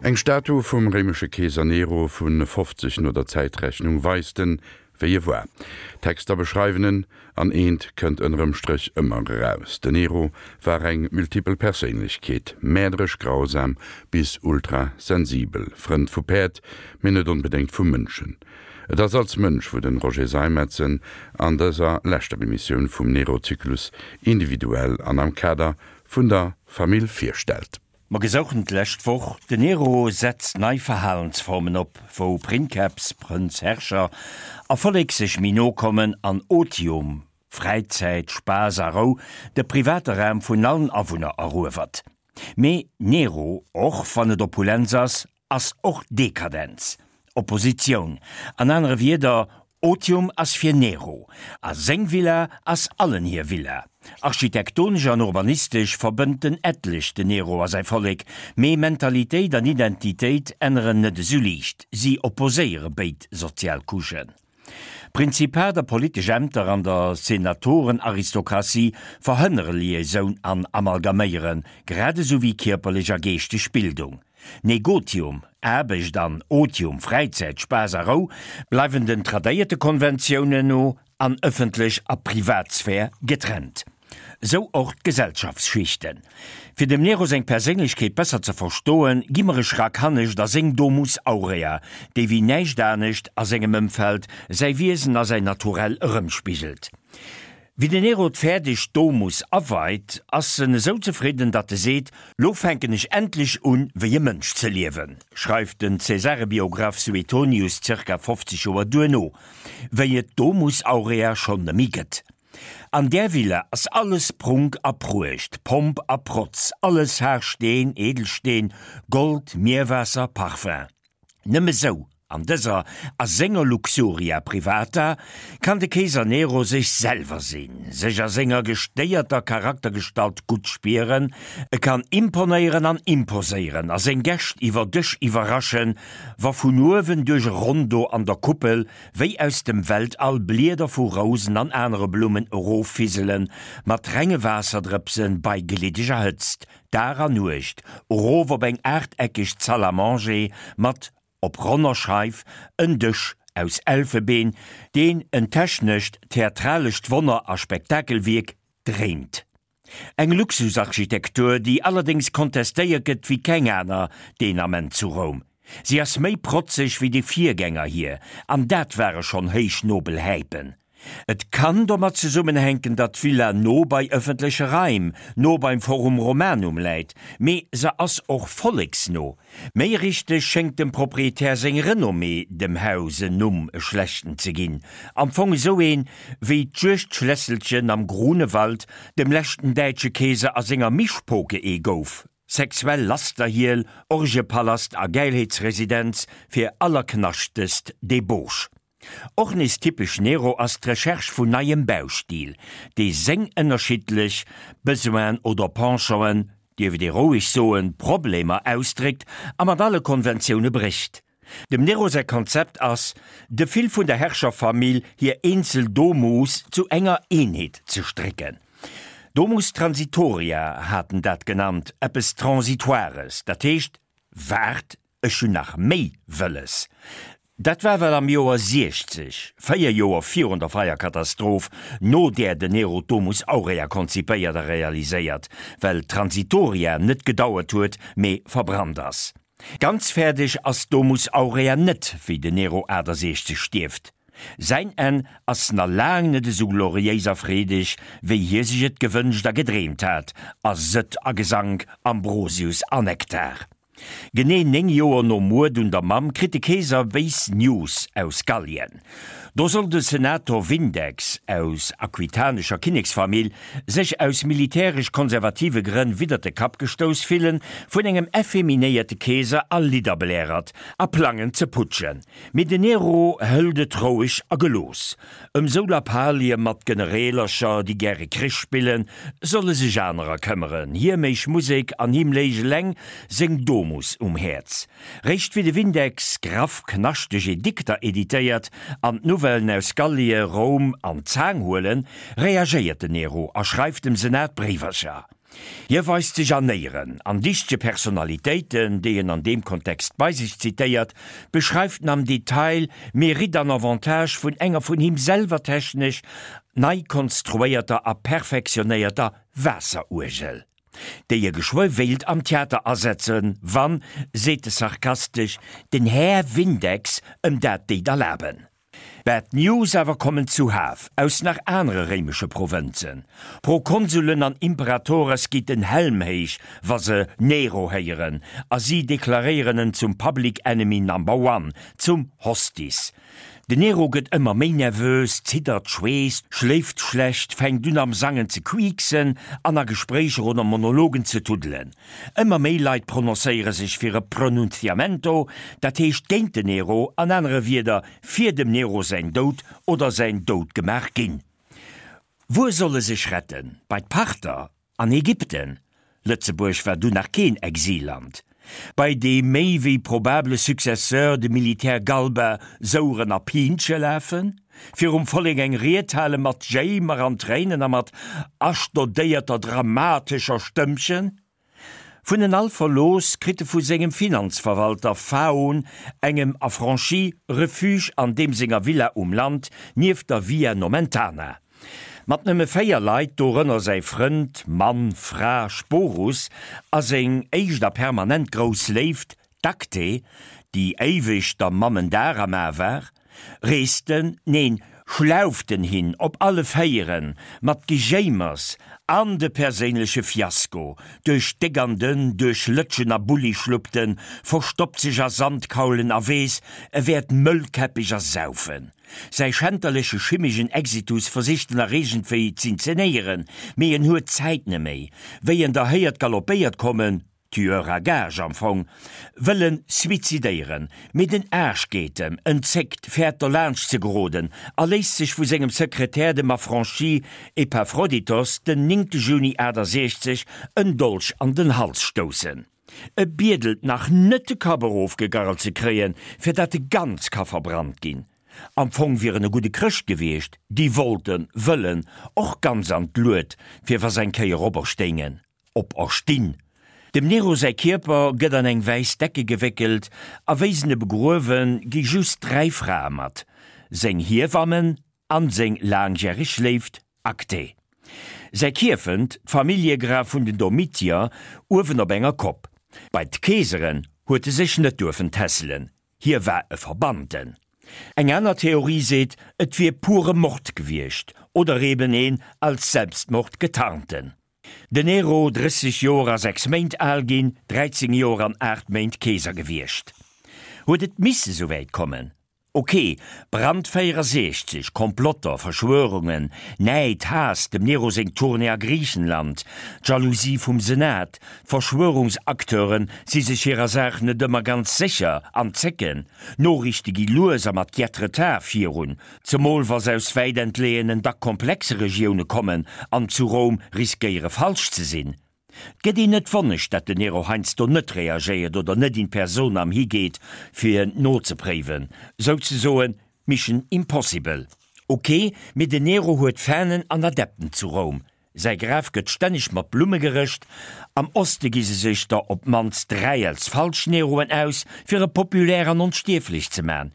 Eng Statu vum réimesche Keeser Nero vu 50 no der Zäitrechnung weist en, wéi e war. D'Texter beschreiwen en, an eent kënnt ënnerem Stréch ëmmer eraus, Den Nero war eng multipel Perséinlechkeet, mäerderesch grausam bis ultra sensibel, Frënd vu Päerd, mee net onbedéngt vu Mënschen. Et ass als Mënsch, wou den Roger Seimetz en an dëser leschter Emissioun vum Nero-Zyklus individuell an am Kader vun der Famill virstellt. Mer gesouchen d'lescht Woch, Den Nero setzt nei Verhalensformen op, wou Princeps, Prënz, Herrscher, a Vollek sech méi no kommen an Otium, Fräizäit, Spaass a Rou, de private Raum vun allen Awunner eruewert. Mee Nero, och wann et Opulenz ass, ass och Dekadenz, Oppositioun. An anere Wierder, Otium ass fir Nero, a seng Villa ass allen hir Villa. Architektonesch an urbanistesch verbënnt den etlech den Nero a säi Vollek, mee Mentalitéit an Identitéit änneren net esou liicht, si opposéiere béid sozial Couchen. Prinzipat a politesch Ämter an der Senatorenaristokratie verhënnere Liaisoun an Amalgaméieren, grad esou wéi kierperlech a geeschteg Bildung. Negotium, Aarbecht, an Otium, Fräizäit, Spaass a Rou, bleiwen den tradéierte Konventiounen no an ëffentlech a Privatsphär getrennt. Sou och d'Gesellschaftsschichten. Fir dem Nero seng Perséinlechkeet besser ze verstoen, gi mer e Schrack hannescht a seng Domus Aurea, déi wéi näischt anescht a sengem Ëmfeld säi Wiesen a säin Naturell erëmspigelt. Wéi den Nero d'fäerdeg Domus aweit, ass en esou zefridden, datt e seet, Lo fänken ech endlech un, wéi e Mënsch ze liewen, schreift den Cäsarebiograph Suetonius zirka 50 Joer duerno, wéi et d'Domus Aurea schonn nëmmi gëtt. An där Villa ass alles Prunk a Pruecht, Pomp a Protz, alles Haarsteen, Edelsteen, Gold, Mierwaasser, Parfum. Nëmme sou, an dëser, a senger Luxuria privata, kann de Keeser Nero sech selwer sinn, sech a senger gestéierter Charaktergestalt gutt spieren, e kann imponéieren an imposéieren a seng Gäscht iwwer Dësch iwwerraschen, wa vun uewen duerch e Rondo an der Kuppel wéi aus dem Weltall Blieder vu Rousen an anere Blummen eroffiselen, mat renge Waasserdrëpsen bei gliddeger Hëtzt, Dag an Nuecht, erof op eng aachteckeg Salle à manger mat, op ronner Scheif, en Dësch aus Elfebeen, deen en technescht, theatralescht Wonner a Spektakelwierk dréint. Eng Luxusarchitektur, déi allerdéngs kontestéiert gëtt wéi keng aner deen Ament zu Roum. Si ass méi protzeg wéi déi Virgänger hir, an dat ware schonn héich nobel Häipen. Et kann domat zesummenhänken, datt d'Villa no bei ëffentleche Raim, no beim Forum Romanum läit, mee se ass och volleksno. Méi richteg schéngt dem Proprietär seng Renommée dem Haus en Numm, e schlechten ze ginn. Am Fong esou een, wéi d'Juegdschlässelchen am Grunewald dem leschten däitsche Keeser a senger Mischpoke ee gouf, sexuell Lasterhiel, Orgiepalast a Gäilheetsresidenz fir allerknaschtest Debauche. Och nees typesch Nero ass d'Recherche vun neiem Baustil, dee seng ënnerschiddlech Besoinen oder Penchant'en, dierf et ee roueg soen, Problemer ausdréckt a mat alle Konventioune brécht. Dem Nero säi Konzept ass, de Fil vun der Herrscherfamill hir eenzel Domus zu enger Eenheet ze strécken. Domus transitoria hat en dat genannt, eppes Transitoires, dat heescht, waart, ech hunn nach méi wëlles. Dat war well am Joer 60, 4 Joer virun der Feierkatastroph, no där den Nero d'Domus Aurea konzipéiert a realiséiert, well d'Transitoria net gedauert huet, mee verbrannt ass. Ganz fäerdeg ass d'Domus Aurea net, wéi den Nero 68 stierft. Säin Enn ass na laang net esou gloriéis a freedeg, wéi hie sech et gewënscht a gedreemt hat, a Sëtt a Gesank, Ambrosius a Nektar. Genee 9 Joer nom Muerd un der Mamm kritt de Keeser béis News aus Gallien. Do soll de Senator Vindex, aus aquitanescher Kinneksfamill, sech aus militäresch-konservative Grënn widdert de Kapp gestouss fillen vun engem effeminéierte Keeser a Lidderblärert a plangen ze putschen. Mee den Nero hëlt et roueg a gelooss. Ëm sou Lappalie mat Genereelercher, déi gäre Krich spillen, solle sech anerer këmmeren. Hie méich Musek an him léich eleng seng Domus um Häerz. Réischt wéi de Vindex graff knaschteg Edikter editéiert an d'Nouvellen aus Gallie Roum an d'Zaang huelen, reagéiert den Nero a schreift dem Senat Bréiwercher. Hie weist sech an Éieren an dichtege Personalitéiten, déi en an deem Kontext bei sech zitéiert, beschreift en am Detail Mérite an Avantage vun enger vun him selwer technesch nei konstruéierter a perfektionéierter Waasseruergel, déi e geschwë wéilt am Theater asetzen, wann, seet e sarkastesch, den Här Vindex em dat déit erlaben. Bad News awer kommen zuhaf aus nach anere réimesche Provënzen. Prokonsulen an Imperatores geet den Helm héich, wa se Nero héieren, a si deklaréieren en zum Public Enemy Number One, zum Hostis. Den Nero gëtt ëmmer méi nervös, ziddert, schweesst, schléift schlecht, fänkt un am Sangen ze quieksen an a Gespréicher oder Monologen ze tuddelen. Ëmmer méi Leit prononcéiere sech fir e Pronunciamento, dat heescht géint den Nero, an anere Wieder, fir dem Nero säin Doud oder säin Doudgemaach ginn. Wuer soll e sech retten? Bei d'Parther? An Ägypten? Lëtzebuerg war dunn nach keen Exilland. Bei dee méi wéi probable Successeur, de Militär Galba, soueren a Piinche lafen? Virum Vollek eng Ried hale mat Jéimer an Tréinen a mat astodéierter dramatescher Stëmmchen? Vun en all verlooss, kritt e vu sengem Finanzverwalter Phaon, engem Affranchi, Refuge an deem senger Villa um Land nieft der Via Nomentana. Mat nëmme 4 Leit, dorënner säi Frënd, Mann, Fra, Sporus a seng éischt a permanent grouss Léift, D'Acte, déi éiweg der Mamm en Dar am A war, reesten, neen, schlauften hin op alle Véieren, mat Gejéimers an de perséinleche Fiasko, duerch déck an dënn, duerch Lëtschen a Bullischluppten, verstoppt sech a Sandkaulen a weess, e wäert mëllkäppeg ersaufen. Säi schänterleche schimmegen Exitus versicht en nach iergendwéi z'inzenéieren, mee en huet d'Zäit neméi. Wéi en der héiert galoppéiert kommen, Tueur à gages am Fong, wëll en suizidéieren, mee den Aarsch geet em, en zéckt, fäert derlaanscht ze geroden a léisst sech vu sengem Sekretär, dem Affranchi Epaphroditos, den 9 Juni 68 en Dolch an den Hals stoussen. E biedelt nach net de Kapp erofgegarrelt ze kréien, fir dat e ganz ka verbrannt ginn. Am Fong wier en e gudde Chrëscht gewiescht, déi wollten, wëllen, och ganz an d'Lued, fir wa s'eng Kéier operstéingen. Operstinn. Dem Nero säi Kierper gëtt an eng wäiss Decke gewéckelt a wéi s'en e begruewen, gi just 3 Frae mat, seng Hiewammen an seng laangjäreg Léift Acte. Säi Kierfent, d'Familljegraf vun den Domitier, uewen op enger Kopp. Bei d'Keeseren huet e sech net duerfen tässelen, hie war e Verbannten. Eng aner Theorie seet, et wier pure Mord gewiescht oder eben een als Selbstmord getarnten. Den Nero, 30 Joer a 6 Méint al ginn, 13 Joer an 8 Méint Keeser gewiescht. Huet et misse souwäit kommen? Ok, Brand 64, Komplotter, Verschwörungen, Näid, Haass, dem Nero seng Tournée a Griichenland, d'Jalousie vum Senat, d'Verschwörungsacteure si sech hirer Saach net ëmmer ganz sécher an zécken, Noriichte gi lues a mat Jet-Retard virun, Zemol wa se aus wäit entleeënen, dack komplexe Regioune kommen an zu Roum riskéiere falsch ze sinn. 't gëtt een net wonneg, dat den Nero heiansdo net reagéiert oder net in personam higeet fir nozepréiwen, souzesoen Mission Impossible. Ok, mee den Nero huet Fanen an Adepten zu Roum, Säi Graf gëtt stänneg mat Blumme gerëscht. Am Oste gi se sech der op d'mannst 3 als falsch Neroen aus, fir e populär an onstierflech ze man.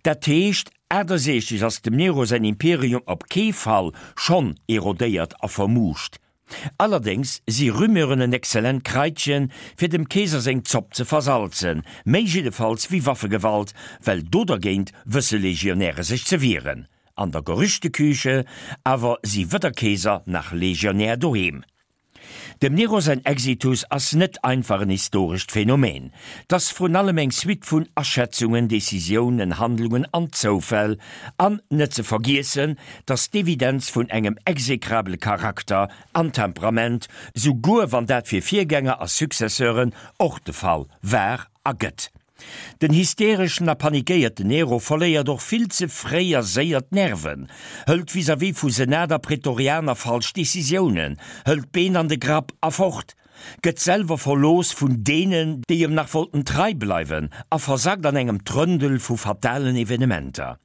Dat heescht, 68 ass dem Nero säin Imperium op kee Fall schonn erodéiert a vermuuscht. Allerdéngs si Rumeuren en exzellent Kraitchen, fir dem Keeser seng Zopp ze versalzen, méi jiddefalls wéi Waffegewalt, well do dergéint wësse Legionäre sech ze wieren. An der Gerüchteküche awer si weder Keeser nach Legionär doheem. Dem Nero säin Exitus ass net einfach en historescht Phänomen. 't ass vrun allem eng Suite vun Aschätzungen, Decisiounen, Handlungen an Zoufäll. An net ze vergiessen, 't ass d'Evidenz vun engem exekrabele Charakter an Temperament, souguer wann dat fir Virgänger a Successeuren och de Fall war a gëtt. Den hystereschen a panikéierten Nero verléiert och vill ze fréi a séier d'Nerven, hëlt vis-à-vis vu Senat a Prätorianer falsch Decisiounen, hëlt d'Been an de Grapp a fort, gëtt selwer verlooss vun deenen, déi em nach wollten trei bleiwen a versackt an engem Trëndel vu fatalen Evenementer.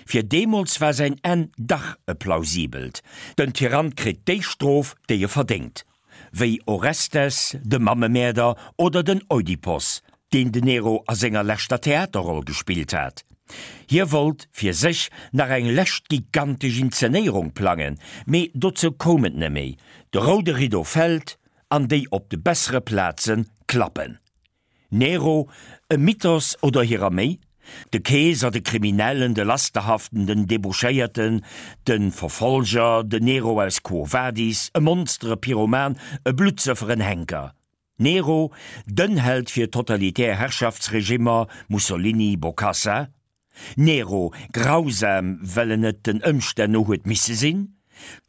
Fir deemools war säin Enn dach e plausibelt, den Tyrann kritt déi Strof, déi e verdéngt. wéi Orestes, de Mammemäerder oder den Oidipos, deen den Nero a senger leschter Theaterroll gespillt hat. Hie wollt fir sech nach eng lescht gigantesch Inzenéierung plangen, mee dozou koum et neméi. De roude Riddo fält an déi op de bessere Plaze klappen. Nero, e Mythos oder hirer méi? De Keeser, de Kriminellen, de Lasterhaften, den Debauchéierten, de Verfolger, den Nero aus Quo Vadis, e Monster, e Pyroman, e Bluttsëffer, en Henker. Nero, den Held fir totalitär Herrschaftsregimmer, Mussolini, Bokassa. Nero, grausam, well en et den Ëmstänn no huet misse sinn,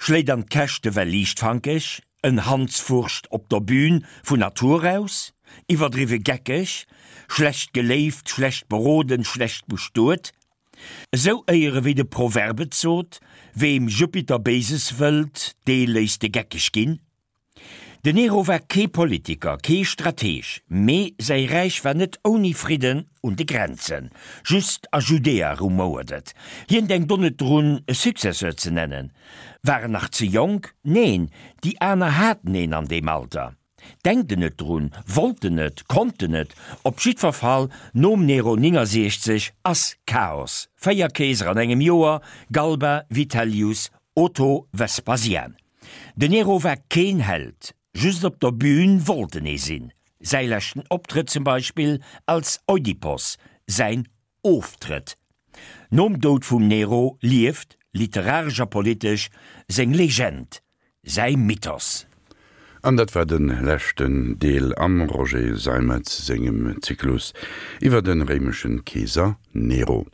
schléit an d'Käschte well liichtfankeg, en Hanswurscht op der Bühn vun Natur aus, iwwerdriwwe geckeg, schlecht geléift, schlecht beroden, schlecht bestuet. Esou éiere wéi de Proverb et sot, Weem Jupiter Béises wëllt, dee léisst e geckeg ginn. Den Nero war kee Politiker, kee Strateg, mee säi Räich war net ouni Fridden un de Grenzen. Just a Judäa rumouert et. Hien denkt och net drun, e Successeur ze nennen. War en nach ze jonk? Neen, déi aner haten een an deem Alter. Denkt en net drun, wollt en net, konnt en net. Op jiddwer Fall, nom Nero 69 ass Chaos. 4 Keeser an engem Joer, Galba, Vitellius, Otho, Vespasian. Den Nero war keen Held, just op der Bühn wollt en ee sinn. Säi leschten Optrëtt zum Beispill als Oidipos, säin Oftrëtt. Nom Doud vum Nero lieft, literaresch a politesch, seng Legend, säi Mythos. An dat war de leschten Deel am Roger Seimetz sengem Zyklus iwwer de réimeschen Keeser Nero.